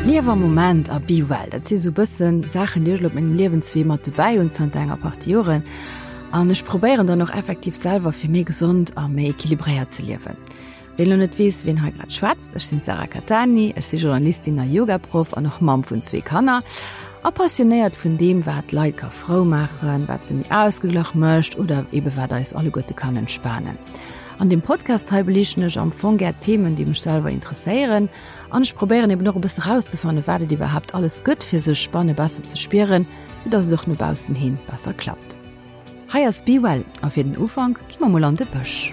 Liew am Moment a be well, dat si sou bëssen Saachen, déi ech elo op mengem Liewenswee mat dobäi hunn zanter enger Partie Joren. An ech probéieren dann och effektiv selwer fir méi gesond a méi equilibréiert ze liewen. Ween elo net weess, ween hei grad schwätzt, ech sinn d'Sarah Cattani, ech si Journalistin a Yogaproff an och Mamm vun zwee Kanner a passionéiert vun deem, wat d'Leit ka frou maachen, wat se méi ausgeglach mécht oder ebe wat eis alleguerte kann entspanen. An deem Podcast hei beliichten ech am Fong gär Themen, déi mech selwer interesséieren an ech probéieren eben och e bësse rauszefannen, wat et iwwerhaapt alles gëtt, fir sech banne besser ze spieren, fir dass et och no baussen hin besser klappt. Hei ass Be Well a fir den Ufank gi mer mol an de Bësch.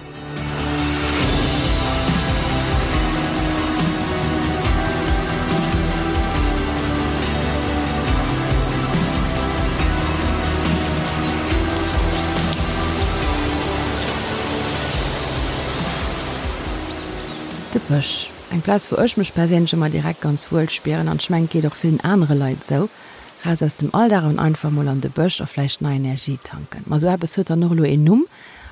De Bësch, eng Plaz wou ech mech perséinlech ëmmer direkt ganz wuel spieren an ech mengen et geet och villen anere Leit esou. Raus aus dem Alldag an einfach mol an de Bësch a vläicht nei Energie tanken. Ma sou eppes huet dann och elo een Numm,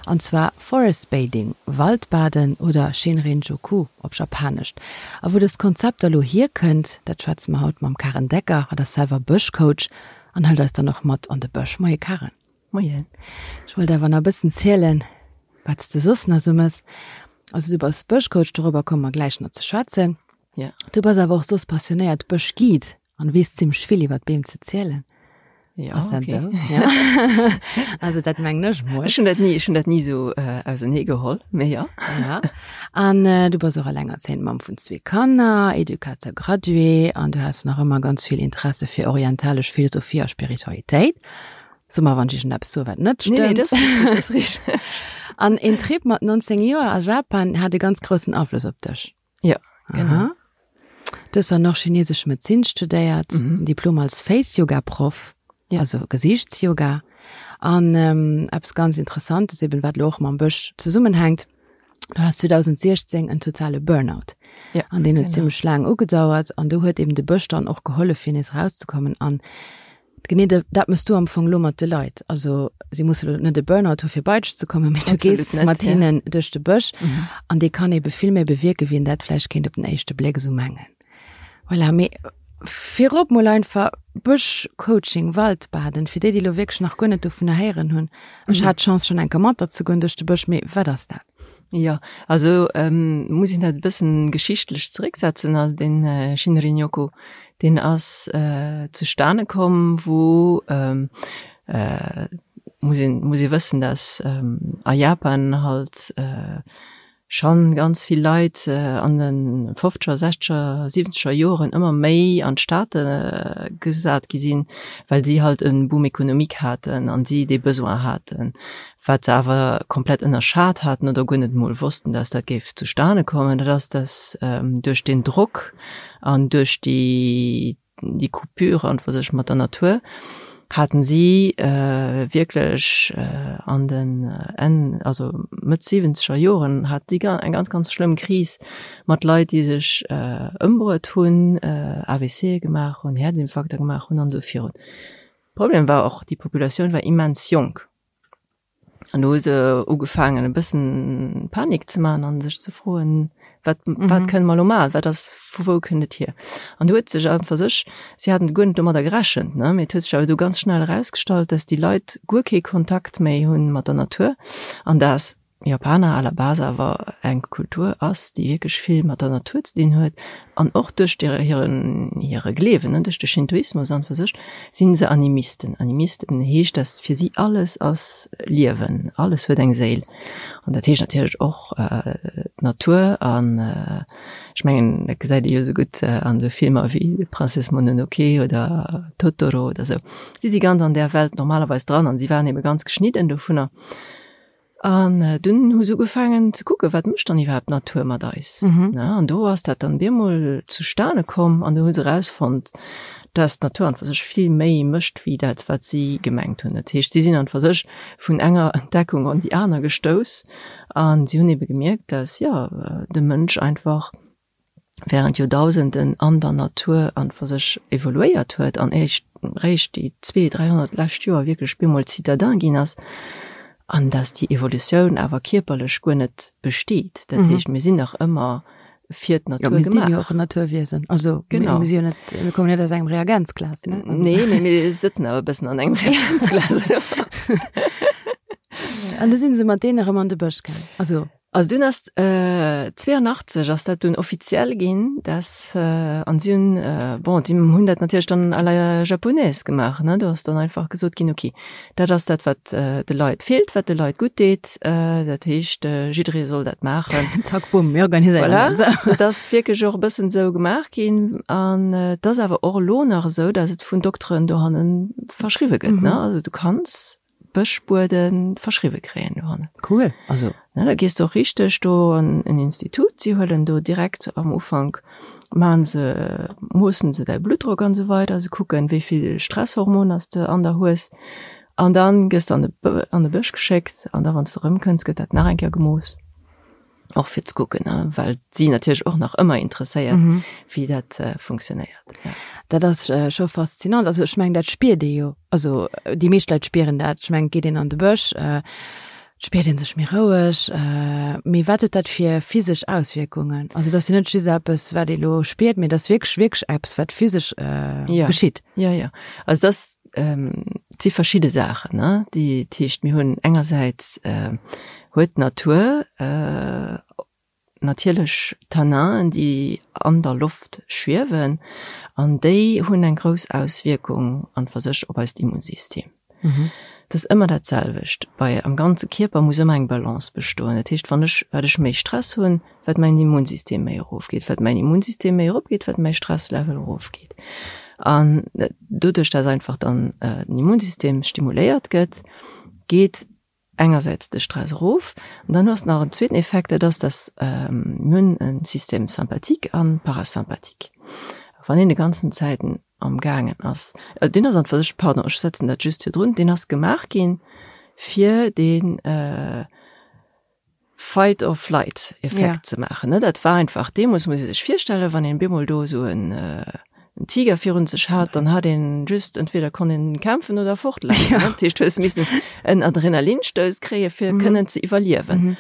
an zwar Forest Bathing, Waldbaden oder Shinrin-Joku op Japanescht. A wou dëst Konzept da lo hierkënnt, dat schwätze mer haut mam Karen Decker. Hatt ass selwer Bëschcoach an hëlt eis dann och mat an de Bësch. Moie Karen. Moien. Ech wollt awer nach e bëssen zielen, wat s de soss nach sou mëss. Also du bass Bëschcoach, dorobber komme mer gläich nach ze schwätzen. Ja. Du bass awer och soss passionéiert Bëschguide. An weess zimmlech vill iwwer d'Beem ze zielen. Ja, Ass dat okay. esou? Ja. Also dat mengen ech mol. Ech hunn dat ni, ech hunn dat ni esou äh, ausenee geholl, mee ja. Ja. An äh, du bass och allengerzéiend Mamm vun zwee Kanner, Educateur gradué an du has nach ëmmer ganz vill Interesse fir orientalesch Philosophie a Spiritualitéit. So mer, wann ech iergendeppes soe wat net Nee, nee, stëmmt. dat ass richteg, dat ass richteg. An een Trip mat 19 Joer a Japan hat e ganz groussen Afloss op dech. Ja, genau. Aha. Du hues dann och chinesesch Medezin studéiert, Mhm. Diplom als Face-Yoga-Proff, Ja. also Gesiichtsyoga. An ähm, eppes ganz Interessantes, eben wat lo och mam Bësch zesummenhänkt, du has 2016 en totale Burnout. Ja, An deen huet genau. zimmlech laang ugedauert an do huet eben de Bësch dann och gehollef, fir nees erauszekommen. An Genee dat mëss du am Fong lo mat de Leit. Also si musse lo net e Burnout hu fir bei dech ze kommen, mee du Absolut gees net, mat ja. hinnen duerch de Bësch Mhm. an dee kann ebe vill méi bewierken, wéi een dat vläicht kéint op den éischte Bléck esou mengen. Voilà, mee virop mol einfach Bëschcoaching, Waldbaden, fir déi, déi lo wierklech nach guer net dovunner héieren hunn. Ech Mhm. hat d'Chance schonn eng Kéier mat der ze goen duerch de Bësch, mee wat ass dat? Jo, also muss een dat e bëssen geschichtlech zerécksetzen. Also den Shinrin-yoku, deen ass zustane komm, wou, muss een, muss ee wëssen, dass a Japan halt schonn ganz vill Leit an de fofzeger, sechzeger, siwwenzeger Joren ëmmer méi an d'Stad gesat gi sinn, well si halt e Boom économique haten an si dee Besoin haten. Wat se awer komplett ënnerschat haten oder guer net emol wossten, dass dat géif zustane kommen, dat ass, dass duerch deen Drock an duerch déi, déi Coupure an fir sech mat der Natur, haten si wierklech an den Enn, also Mëtt siwwenzeger Joren, hat si eng ganz, ganz schlëmm Kris mat Leit, déi sech ëmbruet hunn, AVCe gemaach hunn, Häerzinfarkter gemaach hunn an esou virun. Problem war och, déi Populatioun war immens jonk. An do hu se ugefaangen e bëssen Panik ze man an sech ze froen, wat, mm -hmm. wat kënne mer lo man, wat ass, vu wou kënnt et hier? An do huet sech einfach sech, si haten guer net domadder gerechent, ne, mee et huet sech awer do ganz schnell erausgestallt, dass déi Leit guer kee Kontakt méi hunn mat der Natur an dass Japaner à la base awer eng Kultur ass, déi wierklech vill mat der Natur ze dinn huet an och duerch hiren hire Gleewen, ne, duerch de Shintoismus an fir sech, sinn se Animisten. Animisten heescht, dass fir si alles ass Liewen, alles huet eng Séil an dat heescht natierlech och d'Natur an ech mengen, dat gesäit ee jo esou gutt an esou Filmer wéi Princesse Mononoke oder Totoro oder esou. Si si ganz an där Welt normalerweis dran an si waren ebe ganz geschnidden dovunner. An dunn hu se ugefaangen ze kucken, wat mécht dann iwwerhaapt d'Natur mat eis? Mhm. An do ass dat dann bemol zustane komm an do hu se erausfonnt, dass d'Natur an fir sech vill méi mécht wéi dat, wat si gemengt hunn. Dat heescht, si sinn an fir sech vun enger Entdeckung an déi aner gestouss an si hunn ebe gemierkt, dass, jo, de Mënsch einfach während Joerdausenden an der Natur an fir sech evoluéiert huet an éischt réischt déi zwee, 300 lescht Joer wierklech bemol Citadin ginn ass, an dass déi Evolutioun awer kierperlech guer net besteet. Dat heescht, mir sinn nach ëmmer. Fir d'Natur gemaach. Ja, mir sinn jo och en Naturwiesen. Also, genau. Mir, sinn jo net, mir kommen net aus engem Reagenzglas. Ne? Also. Nee, mee mir sëtzen awer e bëssen an engem Reagenzglas. An du sinn se mat deene erëm an de Bësch gaang. Also. Also dunn ass äh, 82 ass dat dunn offiziell ginn, dass äh, an si hunn äh, bon, déi hunn dat natierlech dann à la japonaise gemaach, ne? Do ass dann einfach gesot ginn, okay, Dat ass dat, wat de Leit feelt, wat de Leit gutt deet. Dat heescht, jidderee soll dat maachen. Zack, bumm, mir organiséieren dat. Voilà, dat ass wierklech och e bëssen esou gemaach ginn. An et ass awer och elo nach esou, datt et vun Dokteren dohanne verschriwwe gëtt, ne? Also du kanns Bëschbuede verschriwwe kréien dohannen. Cool, also. Ne, da gees de och richteg do an en Institut, si huelen do direkt am Ufank, maachen se, moossen se däi Bluttdrock an esou weider, se kucken, wéi vill Stresshormoner s de an der hues an dann gëss de an de an de Bësch geschéckt an da wann s de erëmkënns, gëtt dat nach eng Kéier gemooss, och fir ze kucken, ne, well si natierlech och nach ëmmer interesséiert, wéi dat funktionéiert, ja. Dat ass scho faszinant. Also ech mengen, dat spiert ee jo, also déi meescht Leit spieren dat. Ech mengen, geet een an de Bësch, Et spiert een sech méi roueg. Mee wat huet dat fir physesch Auswierkungen? Also et ass jo net just eppes, wat ee lo spiert, mee et ass wierklech, wierklech eppes, wat physesch geschitt. Jo, jo. Also et ass, et si verschidde Saachen, ne, déi, dat heescht, mir hunn engersäits huet d'Natur natierlech Tanninen, déi an der Loft schwiewen, an déi hunn eng grouss Auswierkung an fir sech op eist Immunsystem. Et ass ëmmer dat selwecht, bei am ganze Kierper muss ëmmer eng Balance bestoen. Dat heescht, wann ech, wat ech méi Stress hunn, wat mäin Immunsystem méi erofgeet, wat mäin Immunsystem méi eropgeet, wat mäi Stresslevel erofgeet. An doduerch, dass einfach dann den Immunsystem stimuléiert gëtt, geet engersäits de Stress erof an dann hues de nach en zweeten Effekt, dat ass, dass mir hunn e Système sympathique an parasympathique. Wann een de ganzen Zäiten am gaangen ass, deen ass an fir sech, pardon, ech setzen dat just virdrun, deen ass gemaach ginn fir dee Fight or flight Effekt ze maachen, ne. Dat war einfach deemools, muss ee sech virstellen, wann een bemol do esou en en Tiger virun sech hat, dann hat een just, entweder konnt een kämpfen oder fortlafen, ne. Dat heescht, du hues missen en Adrenalinstouss kréie fir kënnen ze iwwerliewen.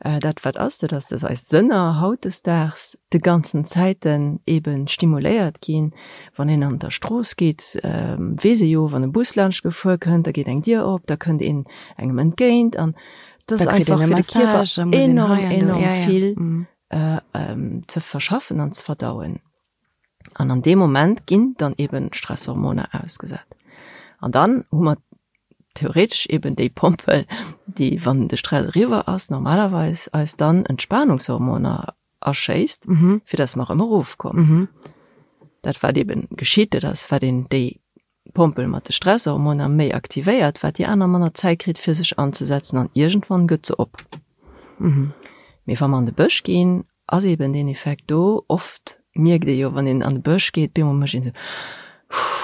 Dat wat ass, dat ass, dass eis Sënner hautdesdaags de ganzen Zäiten eben stimuléiert ginn. Wann een an der Strooss geet, weess ee jo, wann e Bus laanscht gefuer kënnt, da geet eng Dier op, da kënnt een engem entgéint an dat ass einfach fir de Kierper enorm, enorm vill ze verschaffen an ze verdauen. An an deem Moment ginn dann eben Stresshormoner ausgesat. An dann hu mer theoretesch eben déi Pompel, déi, wann de Stress eriwwer ass, normalerweis eis dann Entspanungshormoner aschéisst, fir dass mer erëm erofkommen. Dat wat eben geschitt, dat ass, wat een déi Pompel mat de Stresshormoner méi aktivéiert, wat déi aner manner Zäit kritt fir sech anzesetzen an iergendwann gëtt se op. Mee wa mer an de Bësch ginn, ass eben deen Effekt do. Oft mierkt ee jo, wann een an de Bësch geet, bemol mécht een esou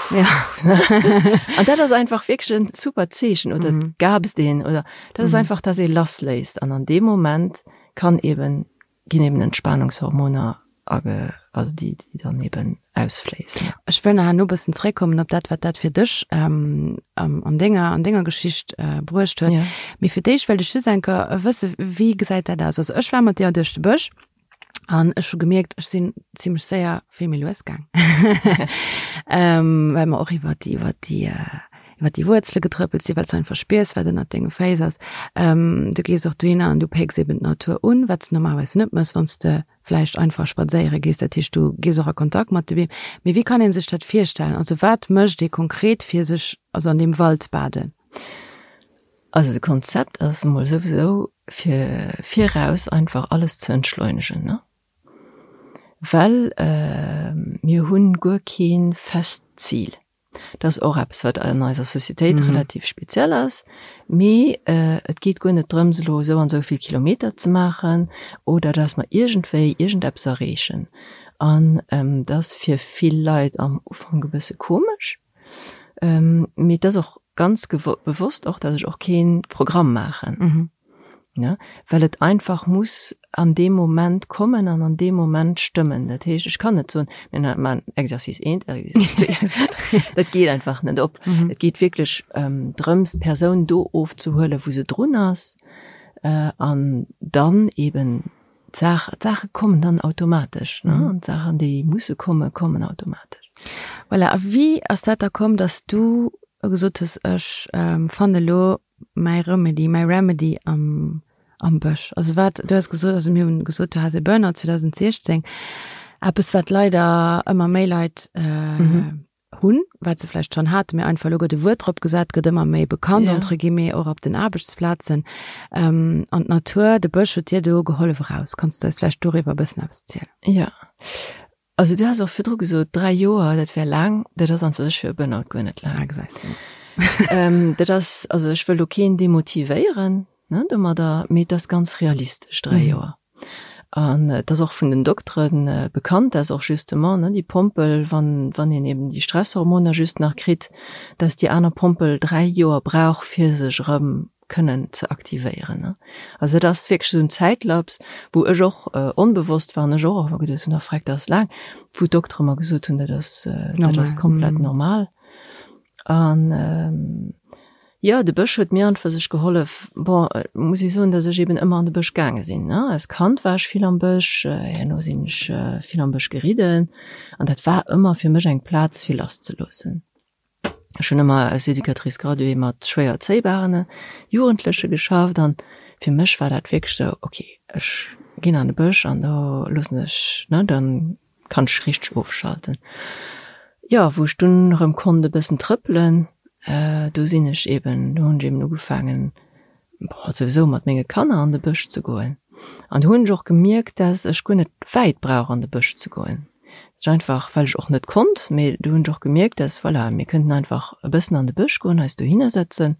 huuh. An dat ass einfach wierklech en super Zeechen oder et gaapst een oder dat ass einfach, dass ee lassléisst an an deem Moment kann eben ginn eben Entspanungshormoner age, also déi, déi dann eben ausfléissen. Ech wëll nach herno e bëssen zréckkommen op dat, wat dat fir dech ähm, an denger, an denger Geschicht äh, bruecht huet. Ja. Mee fir d'éischt wëllt ech just eng Kéier wësse, wéi gesäit dat aus? Also ech war mat dir duerch de Bësch an ech hu gemierkt, ech sinn zimmlech séier vill méi lues gaang. ähm, well mer och iwwer déi, iwwer déi, äh, iwwer déi Wuerzele getrëppelt sinn, well s du einfach spiers, wat ënnert denge Féiss ass. Ähm, du gees och dohinner an du pécks eben d'Natur un, wat s de normalerweis net mëss, wann s de vläicht einfach spadséiere gees. Dat heescht, du gees och a Kontakt mat de Beem. Mee wéi kann ee sech dat virstellen? Also wat mécht ee konkret, fir sech also an deem Wald baden? Also de Konzept ass emol souwisou, fir viraus einfach alles ze entschleunegen, ne? Well mir hunn guer kee fest Zil. Dat ass och eppes, wat an eiser Societéit mm. relativ speziell ass. Mee äh, et geet guer net drëms, elo esou an esou vill Kilometer ze maachen oder dass mer iergendwéi iergendeppes erreechen. An ähm, dat ass fir vill Leit am Ufank e bësse komesch. Ähm, mee et ass och ganz bewosst och, dass ech och kee Programm maachen. Mm. Ne? Well et einfach muss an deem Moment kommen an an deem Moment stëmmen. Dat heescht, ech kann net soen, mir maachen Exercice eent, Exercice zwee, Exercice dräi. Dat geet einfach net op. Mhm. Et geet wierklech ähm, drëms, d'Persoun do ofzehuelen, wou se drun ass, äh, an dann eben. d'Saach, d'Saache kommen dann automatesch, ne? An d'Saachen, déi musse kommen, kommen automatesch. Voilà, a wéi ass dat da komm, dass du gesot hues, ech fannen elo mäi Remedy, mäi Remedy am, am Bësch? Also wat, du has gesot, also mir hunn gesot, du has e Burnout 2016, eppes wat leider ëmmer méi Leit hunn, wat se vläicht schonn haten, mee einfach elo gëtt e Wuert drop gesat, gëtt ëmmer méi bekannt, entre guillemets, och op den Aarbechtsplazen. An d'Natur, de Bësch huet dir do gehollef eraus. Kanns du eis vläicht doriwwer e bëssen eppes zielen? Jo. Also du has och virdru gesot, 3 Joer, dat wär laang. Dat ass an fir sech fir e Burnout guer net laang. Ah, gesäis du. Dat ass, also ech wëll do keen demotivéieren, ne, domadder, mee et ass ganz realistesch, 3 Joer. An et ass och vun den Doktere bekannt, dass och justement, ne, déi Pompel, wann, wann een eben déi Stresshormoner just nach kritt, dass déi aner Pompel 3 Joer brauch, fir sech erëm kënnen ze aktivéieren, ne. Also dat ass wierklech esou en Zäitlaps, wou ech och onbewosst war an ech och ëmmer geduecht hunn, oh freck, dat ass laang, wou d'Doktere mer gesot hunn, dat ass, dat ass komplett normal. An jo, de Bësch huet mir an fir sech gehollef. Bon, muss ech soen, datt ech eben ëmmer an de Bësch gaange sinn, ne. Als Kand war ech vill am Bësch, herno sinn ech vill am Bësch geridden an dat war ëmmer fir mech eng Plaz fir lasszeloossen. Ech hunn ëmmer als Éducatrice graduée mat schwéier erzéibaren Jugendleche geschafft an fir mech war dat wierklech sou, ok, ech ginn an de Bësch an do loossen ech, ne, dann kann ech richteg ofschalten. Jo, wou ech dunn erëm konnt e bëssen trëppelen, do sinn ech eben, do hunn ech eben ugefaangen, bon, souwisou mat menge Kanner an de Bësch ze goen. An do hunn ech och gemierkt, dass ech guer net wäit brauch an de Bësch ze goen. Dat ass einfach, well ech och net konnt, mee do hunn ech och gemierkt, dass, voilà, mir kënnten einfach e bëssen an de Bësch goen, eis dohinner sëtzen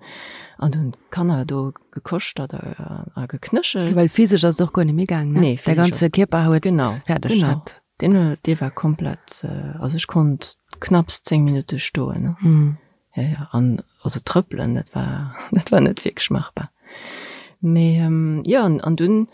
an do hunn d'Kanner do gekoschtert a geknéchelt. Well physesch ass et och guer net méi gaang, ne? Nee, physesch ass. Däi ganze Kierper huet genau, fäerdeg. Genau, deen, dee war komplett, also ech konnt knapps 10 Minutte stoen, ne? Mm. Ja, ja, an also trëppelen, dat war, dat war net wierklech machbar. Mee jo, an, an dunn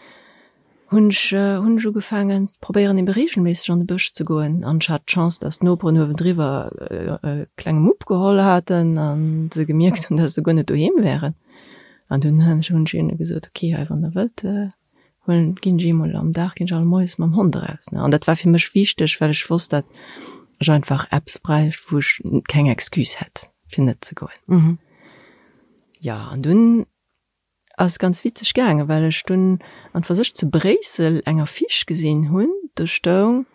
hunn ech, hunn ech ugefaangen, probéieren ebe reegelméisseg an de Bësch ze goen. An ech hat d'Chance, dass d'Noperen uewendriwwer e klenge Mupp geholl haten an se gemierkt hunn, dass se guer net doheem wären. An dunn hunn ech, hunn ech hinne gesot, okay, hei wann der wëllt, huelen, ginn ech eemol am Dag, ginn ech all Moies mam Hond eraus, ne. An dat war fir mech wichteg, well ech wosst, dat ech einfach eppes bräicht, wou ech keng Excuse hätt, fir net ze goen. Jo, an dunn Ass ganz witzeg gaangen, well ech dunn an fir sech zu Bréissel eng Affiche gesinn hunn, do stoung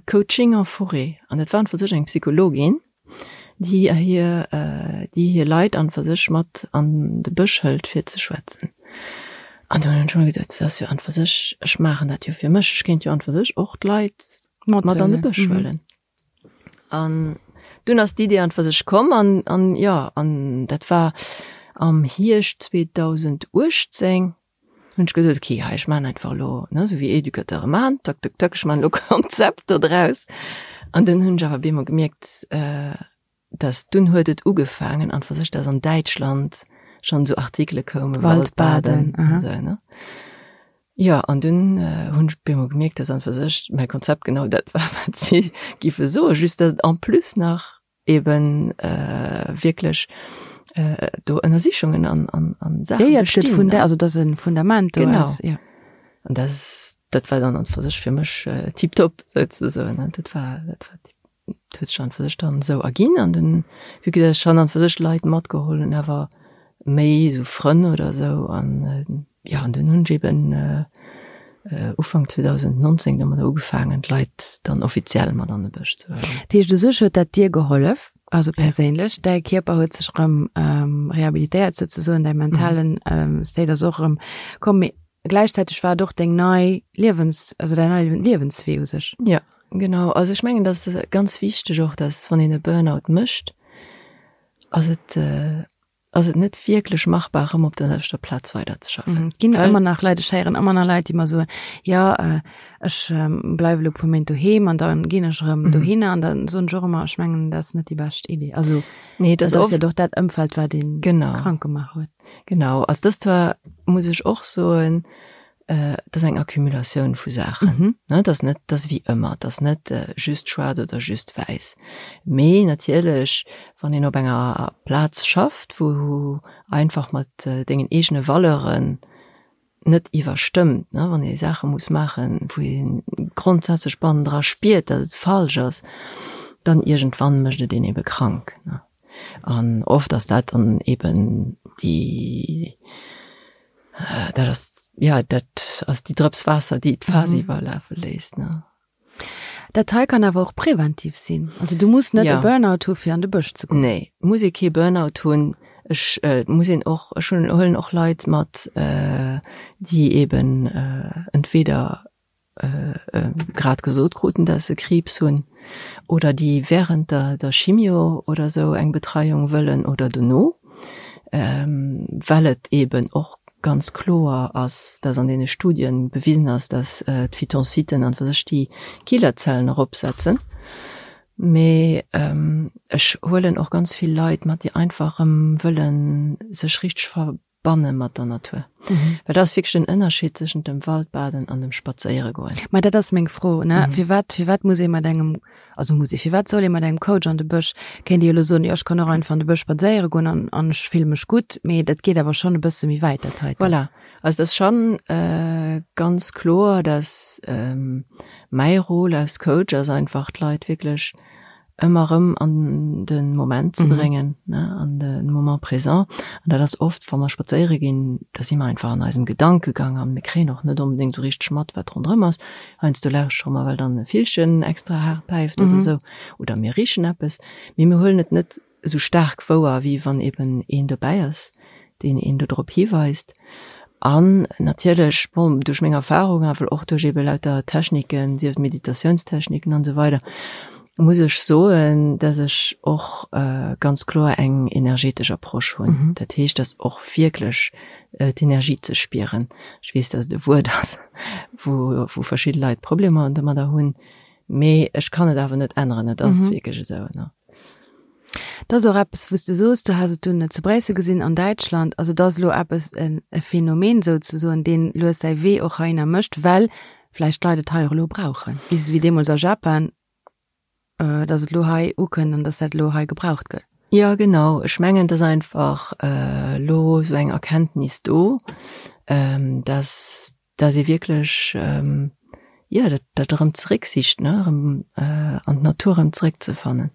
Coaching en forêt an dat war an fir sech eng Psychologin, déi hir déi hir Leit an fir sech mat an de Bësch hëlt fir ze schwätzen. An do hunn ech mer geduet, dat ass jo an fir sech, ech maachen dat jo fir mech, ech kéint jo an fir sech och d'Leit mat an de Bësch huelen. An dunn ass d'Idee an fir sech komm an, an jo, an dat war am Hierscht 2018, hunn ech gesot, okay, hei ech maachen einfach elo, ne, esou wéi Educateure maachen, tak, tak, tak, ech maachen elo Konzept do draus. An dunn hunn ech awer op eemol gemierkt, dass dunn huet et ugefaangen an fir sech, dass an Däitschland schonn esou Artikele koumen, Waldbaden an esou, ne. Jo, an dunn hunn ech op eemol gemierkt, dass an fir sech mäi Konzept genau dat war, wat si giffe soen, just dass et en plus nach eben wierklech do Ënnersichungen an, an, an Saache bestinn. Ja, ja, et gëtt also dass e Fundament do ass. Genau. An dat, dat war dann an fir sech fir mech tiptop souzesoen. Dat war, dat war tip. Et huet sech an fir sech dann esou erginn an den, vue que dass ech schonn an fir sech Leit matgeholl hunn, awer méi esou Frënn oder esou an jo, an dunn hunn ech eben Ufank 2019 domadder ugefaangen, d'Leit dann offiziell mat an de Bësch ze huelen. Dat heescht, u sech huet dat dir gehollef, also perséinlech, däi Kierper huet sech erëm rehabilitéiert souzesoen, däi mentalen State ass och erëm komm, mee gläichzäiteg war et och deng nei Liewens, also däin neie Liewenswee u sech. Jo, genau. Also ech mengen, dat ass ganz wichteg och, dass wann een e Burnout mécht, ass et, ass et net wierklech machbar, erëm op der selwechter Plaz weiderzeschaffen. Et ginn ëmmer nach Leit, ech héieren ëmmer nach Leit, déi mer soen, jo, ech bleiwe elo e puer Méint doheem an da ginn ech erëm dohinner. An da soen ech och ëmmer, ech mengen, dat ass net déi bescht Idee. Also, nee, dat ass jo doch dat Ëmfeld, wat een krank gemaach huet. Genau, also dëst war, muss ech och soen, dat ass eng Accumulatioun vu Saachen. Ne, dat ass net, dat ass wéi ëmmer, dat ass net just schwaarz oder just wäiss. Mee natierlech, wann een op enger Plaz schafft, wou einfach mat dengen eegene Valeuren. net iwwerstëmmt, ne, wann ee Saache muss maachen, wou ee grondsätzlech bannendra spiert, datt et falsch ass, dann iergendwann mécht et een ebe krank, ne. An oft ass dat dann eben déi, dat ass, jo, dat ass déi Drëps Waasser, déi d'Faass iwwerlafe léisst, ne. Dat hei kann awer och präventiv sinn. Also du muss net e Burnout hu fir an de Bësch ze goen. Nee, muss ee kee Burnout hunn. Ech muss een och, ech hunn, huelen och Leit mat, déi eben entweder grad gesot kruten, dass se Kriibs hunn oder déi während der der Chimio oder esou eng Betreiung wëllen oder dono. Well et eben och ganz kloer ass, dass an deene Studien bewisen ass, dass d'Phytonciden an fir sech déi Killerzellen eropsetzen. Mee ech huelen och ganz vill Leit mat, déi einfach erëm wëlle sech richteg verbanne mat der Natur. Well dat ass wierklech den Ënnerscheed tëschent dem Waldbaden an dem Spadséieregoen. Ma dat ass meng Fro, ne? Firwat, firwat muss ee mat engem Also muss ee, firwat soll ee mat engem Coach an de Bësch? Kéint ee jo elo soen, jo ech kann och einfach an de Bësch spadséiere goen an an ech fille mech gutt, mee dat geet awer schonn e bësse méi wäit dat heiten. Voilà, also et ass schonn ganz kloer, dass mäi Rôle als Coach ass einfach d'Leit wierklech ëmmer erëm an de Moment ze bréngen, ne, an de Moment présent. An dat ass oft, wa mer spadséiere ginn, da si mer einfach an eisem Gedankegang an mir kréien och net onbedéngt esou richteg mat, wat ronderëm ass. Heiansdo lauschtere mer, well dann e Villchen extra haart päift oder esou, oder mir richen eppes, mee mir huelen et net esou staark wouer, wéi wann eben een dobäi ass, deen een do drop hiweist. An natierlech, bon, duerch meng Erfahrung, awer och duerch ebe lauter Techniken, sief et Meditatiounstechniken an esou weider, muss ech soen, dass ech och ganz kloer eng energetesch Approche hunn. Dat heescht, dass och wierklech d'Energie ze spieren. Ech weess, dass et e Wuert ass, wou wou verschidde Leit Problemer domadder hunn, mee ech kann et awer net änneren, et ass wierklech esou, ne. Dat ass och eppes, wou s de soos, du has et dunn zu Bréissel gesinn, an Däitschland. Also et ass elo eppes, e Phänomen souzesoen, deen lues säi Wee och heihinner mécht, well vläicht d'Leit et hei och elo brauchen, wéi deemools a Japan. dass et elo hei ukënnt an dass dat elo hei gebraucht gëtt. Jo, genau. Ech mengen, et ass einfach elo esou eng Erkenntnis do, dass, dass ee wierklech, jo, dat, dat erëm zerécksicht, ne, erëm an d'Natur erëm zeréckzefannen.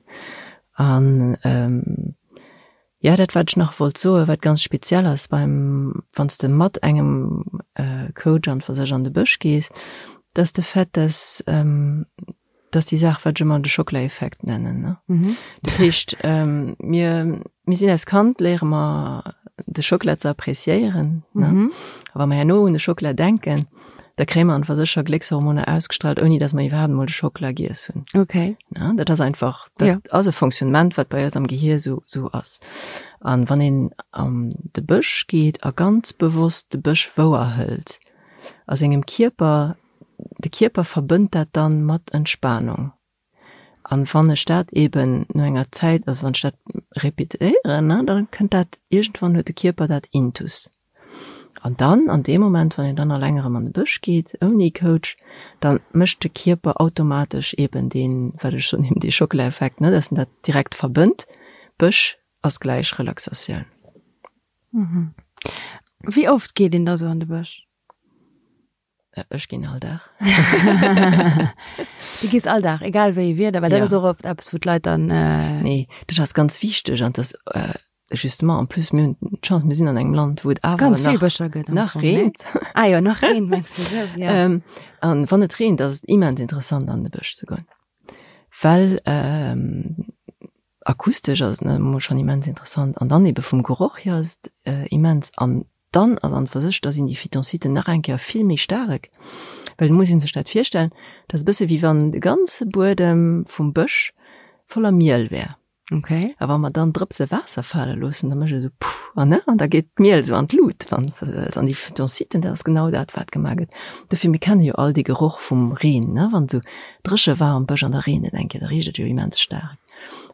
An, jo, dat, wat ech nach wollt soen, wat ganz speziell ass beim, wann s de mat engem Coach an fir sech an de Bësch gees, dat ass de Fait, dass, Dat ass déi Saach, wat ech ëmmer de Schockela-Effekt nennen. Ne? Mhm. Dat heescht, ähm, mir, mir sinn als Kand, léiere mer de Schockela ze appreciéieren. Ne? Mhm. A wa mer herno un de Schockela denken, da kréie mer einfach sécher Gléckshormoner ausgestrahlt, ouni dass mer iwwerhaapt emol de Schockela giess hunn. Okay. Ne? Dat ass einfach, dat ja. ass e Fonctionnement, wat bei eis am Gehir so, so ass. An wann een an de Bësch geet a ganz bewosst de Bësch wouerhëlt, a sengem Kierper De Kierper verbënnt dat dann mat Entspanung. An wann ech dat eben no enger Zäit, also wann ech dat repetéieren, ne, dann kënnt dat iergendwann huet de Kierper dat intus. An dann an deem Moment, wann een dann alleng erëm an de Bësch geet, ouni Coach, dann mécht de Kierper automatesch eben deen, wat ech soen, eben dee Schockela-Effekt, ne, dass en dat direkt verbënnt, Bësch ass gläich Relaxatioun. Wéi oft geet een da sou an de Bësch? Ech ginn all Dag. Du gees all Dag, egal wéi Wieder, well dat ass och oft eppes, wou d'Leit dann. Äh nee, dat ass ganz wichteg an das äh, justement en plus mir hunn d'Chance, mir sinn an engem Land, wou et awer ganz vill Bëscher gëtt. Nach reent. Ah jo, nach reent, mengst du esou, ja. Ähm, an wann et reent, ass et immens interessant an de Bësch ze goen, well ähm, akustesch ass et emol schonn immens interessant an dann ebe vum Geroch hier ass et äh, immens an Dann ass an fir sech, da sinn déi Phytonciden nach eng Kéier vill méi staark, well et muss ee sech dat virstellen, dat ass e bësse wéi wann de ganze Buedem vum Bësch voller Miel wär. Okay. A wa mer dann Drëpse Waasser fale loossen, da mécht et esou puff an ne, an da geet d'Miel esou an d'Lut, wann s de wëlls. An déi Phytonciden, dat ass genau dat, wat gemaach gëtt. Dofir, mir kenne jo all dee Geroch vum Reen, ne, wann esou dréche war am Bësch an da reent et eng Kéier, da richt et jo immens staark.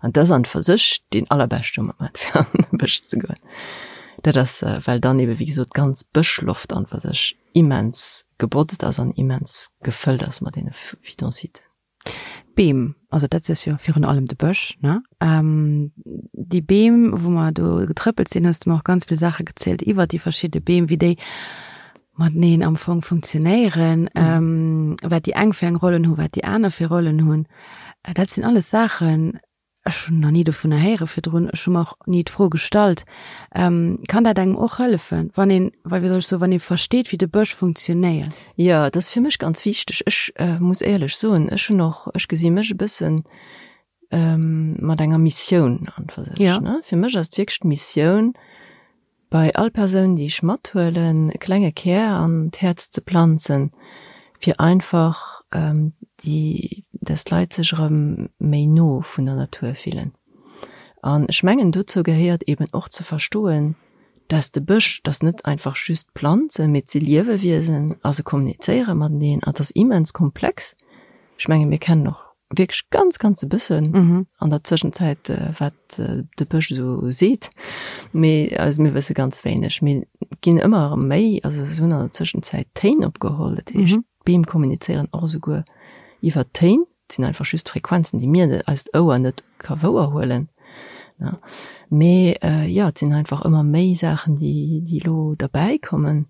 An dat ass an fir sech deen allerbeschte Moment, fir an de Bësch ze goen. Dat ass, well dann ebe wéi gesot d'ganz Bëschloft an fir sech immens gebotzt ass an immens gefëllt ass mat deene Phytonciden. D'Beem, also dat ass jo virun allem de Bësch, ne? Déi Beem, wou mer do getrëppelt sinn, hues de mer och ganz vill Saache gezielt iwwert déi verschidde Beem, wéi déi. Mateneen am Fong funktionéieren, mhm. wat déi eng fir eng Rollen hu, wat déi aner fir Rollen hunn. Äh, dat sinn alles Saachen, ech hunn nach ni dovunner héiere virdrun, ech hu mer och ni d'Fro gestallt. Ähm, kann dat engem och hëllefen, wann een, well wéi soll ech soen, wann ee versteet, wéi de Bësch funktionéiert? Jo, dat ass fir mech ganz wichteg. Ech äh, muss éierlech soen, ech hunn och, ech gesi mech e bëssen ähm, mat enger Missioun an fir sech. Ja. Ne? Fir mech ass et wierklech d'Missioun, bei all Persoun, déi ech mathuelen, e klenge Kär an d'Häerz ze planzen, fir einfach déi, dass d'Leit sech erëm méi no vun der Natur fillen. An ech mengen, dozou gehéiert eben och ze verstoen, dass de Bësch, dass net einfach just Planzen, mee et si Liewewiesen a se kommunizéiere mateneen an et ass immens komplex. Ech menge mir kennen och wierklech ganz ganz e bëssen mhm. an der Zwischenzäit äh, wat äh, de Bësch so seet. Mee also mir wësse ganz wéineg. Mir ginn ëmmer méi, also se hunn an der Zwischenzäit Téin opgeholl, dat heescht mhm. Beem kommunizéieren och esouguer iwwer Téin, dat sinn einfach just Frequenzen, déi mir eist Ouer net ka wouerhuelen. Ja. Mee äh, ja, et sinn einfach ëmmer méi Saachen, déi, déi lo derbäi kommen.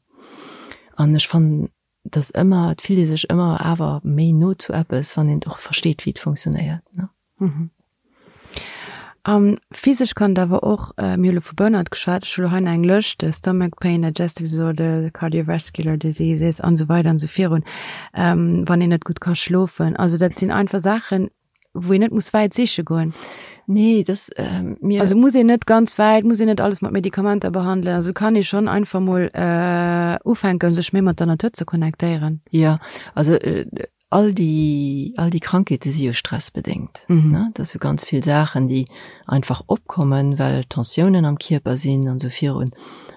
An ech fannen dass ëmmer, et fillt ee sech ëmmer awer méi no zu eppes, wann een och versteet, wéi et funktionéiert, ne. Mhm. Um, physesch kann et awer och, äh, mir hu lo vu Burnout geschwat, ech hu lo hei nach eng Lëscht, äh, Stomach Pain, Digestive Disorder, Cardiovascular Diseases an esou weider an esou virun, ähm, wann een net gutt ka schlofen. Also dat sinn einfach Saachen, wou een net muss wäit siche goen. Nee, das, ähm, mir also muss een net ganz wäit, muss een net alles mat Medikamenter behandelen. Also kann ee schon einfach mol äh, ufänken, sech méi mat der Natur ze connectéieren. Ja, also äh, all déi, all déi Krankheete si jo stressbedéngt. Mhm. Ne? Dat si ganz vill Saachen, déi einfach opkommen, well Tensiounen am Kierper sinn an esou virun.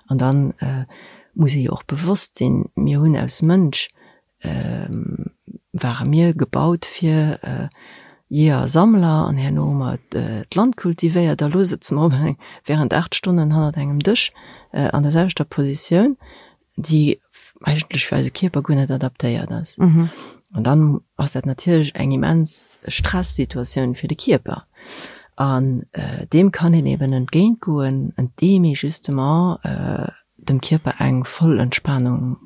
An dann äh, muss ee jo och bewosst sinn, mir hunn aus Mënsch ware mir gebaut fir Jeeër, Sammler an herno hu mer d'Land kultivéiert a lo sëtze mer op eng während 8 Stonnen hannert engem Dësch an der selwechter Positioun, déi eigentlech fir eise Kierper guer net adaptéiert ass. An dann ass dat natierlech eng immens Stressituatioun fir de Kierper an deem kann een eben entgéintgoen, andeem ee justement dem Kierper eng voll Entspanung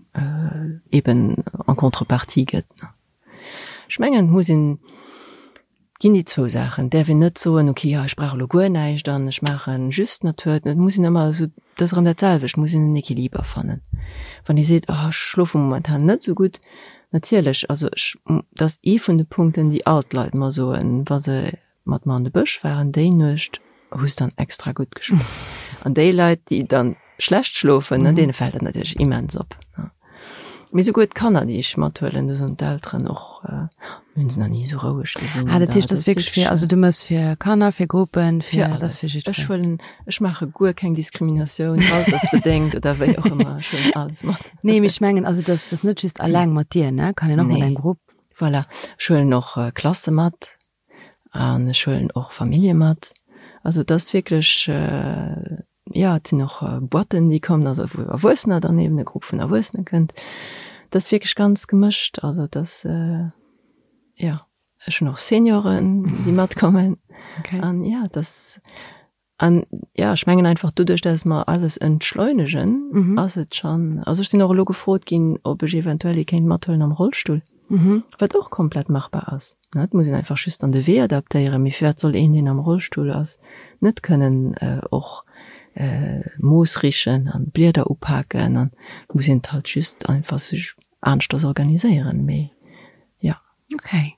eben en contrepartie gëtt. Ech mengen, et muss een, et ginn déi zwou Saachen, et däerf een net soen, ok, jo ech brauch elo guer näischt an ech maache just Natur. Et muss een ëmmer esou, dat ass erëm dat selwecht, et muss een en Equiliber fannen. Wann ee seet, oh ech schlofe momentan net esou gutt, natierlech, also ech, dat ass ee vun de Punkten, déi all d'Leit mer soen, wa se mat mer an de Bësch waren, déi Nuecht hu se dann extra gutt geschlof. An déi Leit, déi dann schlecht schlofen, ne, deene fält dat natierlech immens op. Ne. Mee souguer d'Kanner, déi ech mathuelen, do soen d'Elteren och, äh, mir hunn se nach ni esou roueg gesinn. Ah, dat heescht, dat ass wierklech fir, also du mëss fir Kanner, fir Gruppen, fir, fir alles. Fir jiddwereen. Ech huelen, ech maache guer keng Diskriminatioun, altersbedéngt oder wéi och ëmmer, ech huelen alles mat. Nee, mee ech mengen, also dat ass net just alleng mat dir, ne, kann een och mat engem Grupp. Voilà, ech huelen och Klasse mat. An ech huelen och Famillje mat. Also et ass wierklech, jo, et sinn och Boîten, déi kommen, also wou Erwuessener dann eben, e Grupp vun Erwuessene kënnt. Et ass wierklech ganz gemëscht. Also et ass, jo, ech hunn och Senioren, déi matkommen. An jo, et ass. An ja, ech mengen einfach doduerch, dass mer alles entschleunegen, mhm. ass et schon. Also ech sinn och elo gefrot ginn, ob ech eventuell ee kéint mathuelen am Rollstull. Mhm. Wat och komplett machbar ass. Ne, et muss een einfach just an de Wee adaptéieren. Mee firwat soll een, deen am Rollstull ass, net kënnen äh, och äh, Moos richen an Blieder upaken an muss een et halt just einfach sech aneschters organiséieren. Mee ja. Okay.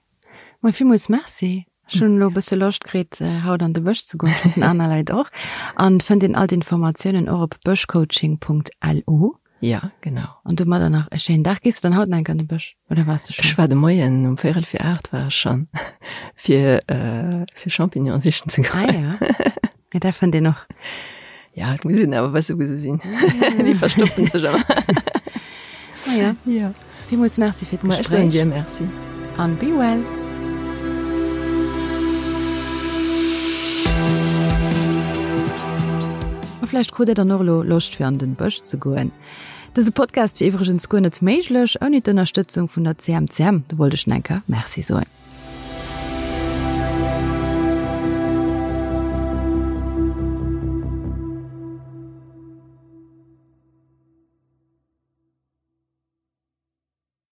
Mei villmools Merci. Ech hunn elo e bësse Loscht kritt, haut an de Bësch ze goen. Ech hoffen aner Leit och. An fënnt een all d'Informatiounen och op bëschcoaching.lu. Ja, genau. An domadder nach e schéinen Dag. Gees de dann haut nach eng Kéier an de Bësch oder waars de schonn? Ech war de Moien um véierel fir 8 war ech schonn, fir, fir Champignonen sichen ze goen. Ah ja. Ja, dat fënnt een och. Ja, et muss een awer wësse wou se sinn. Déi verstoppen sech ëmmer. Ah ja. Ja. Villmools Merci fir d'Gespréich. Ech soen dir Merci. An be well. A vläicht krut Dir dann och elo Loscht fir an den Bësch ze goen. Dëse Podcast wier iwwregens guer net méiglech ouni d'Ënnerstëtzung vun der CMCM. Do wollt ech nach eng Kéier Merci soen.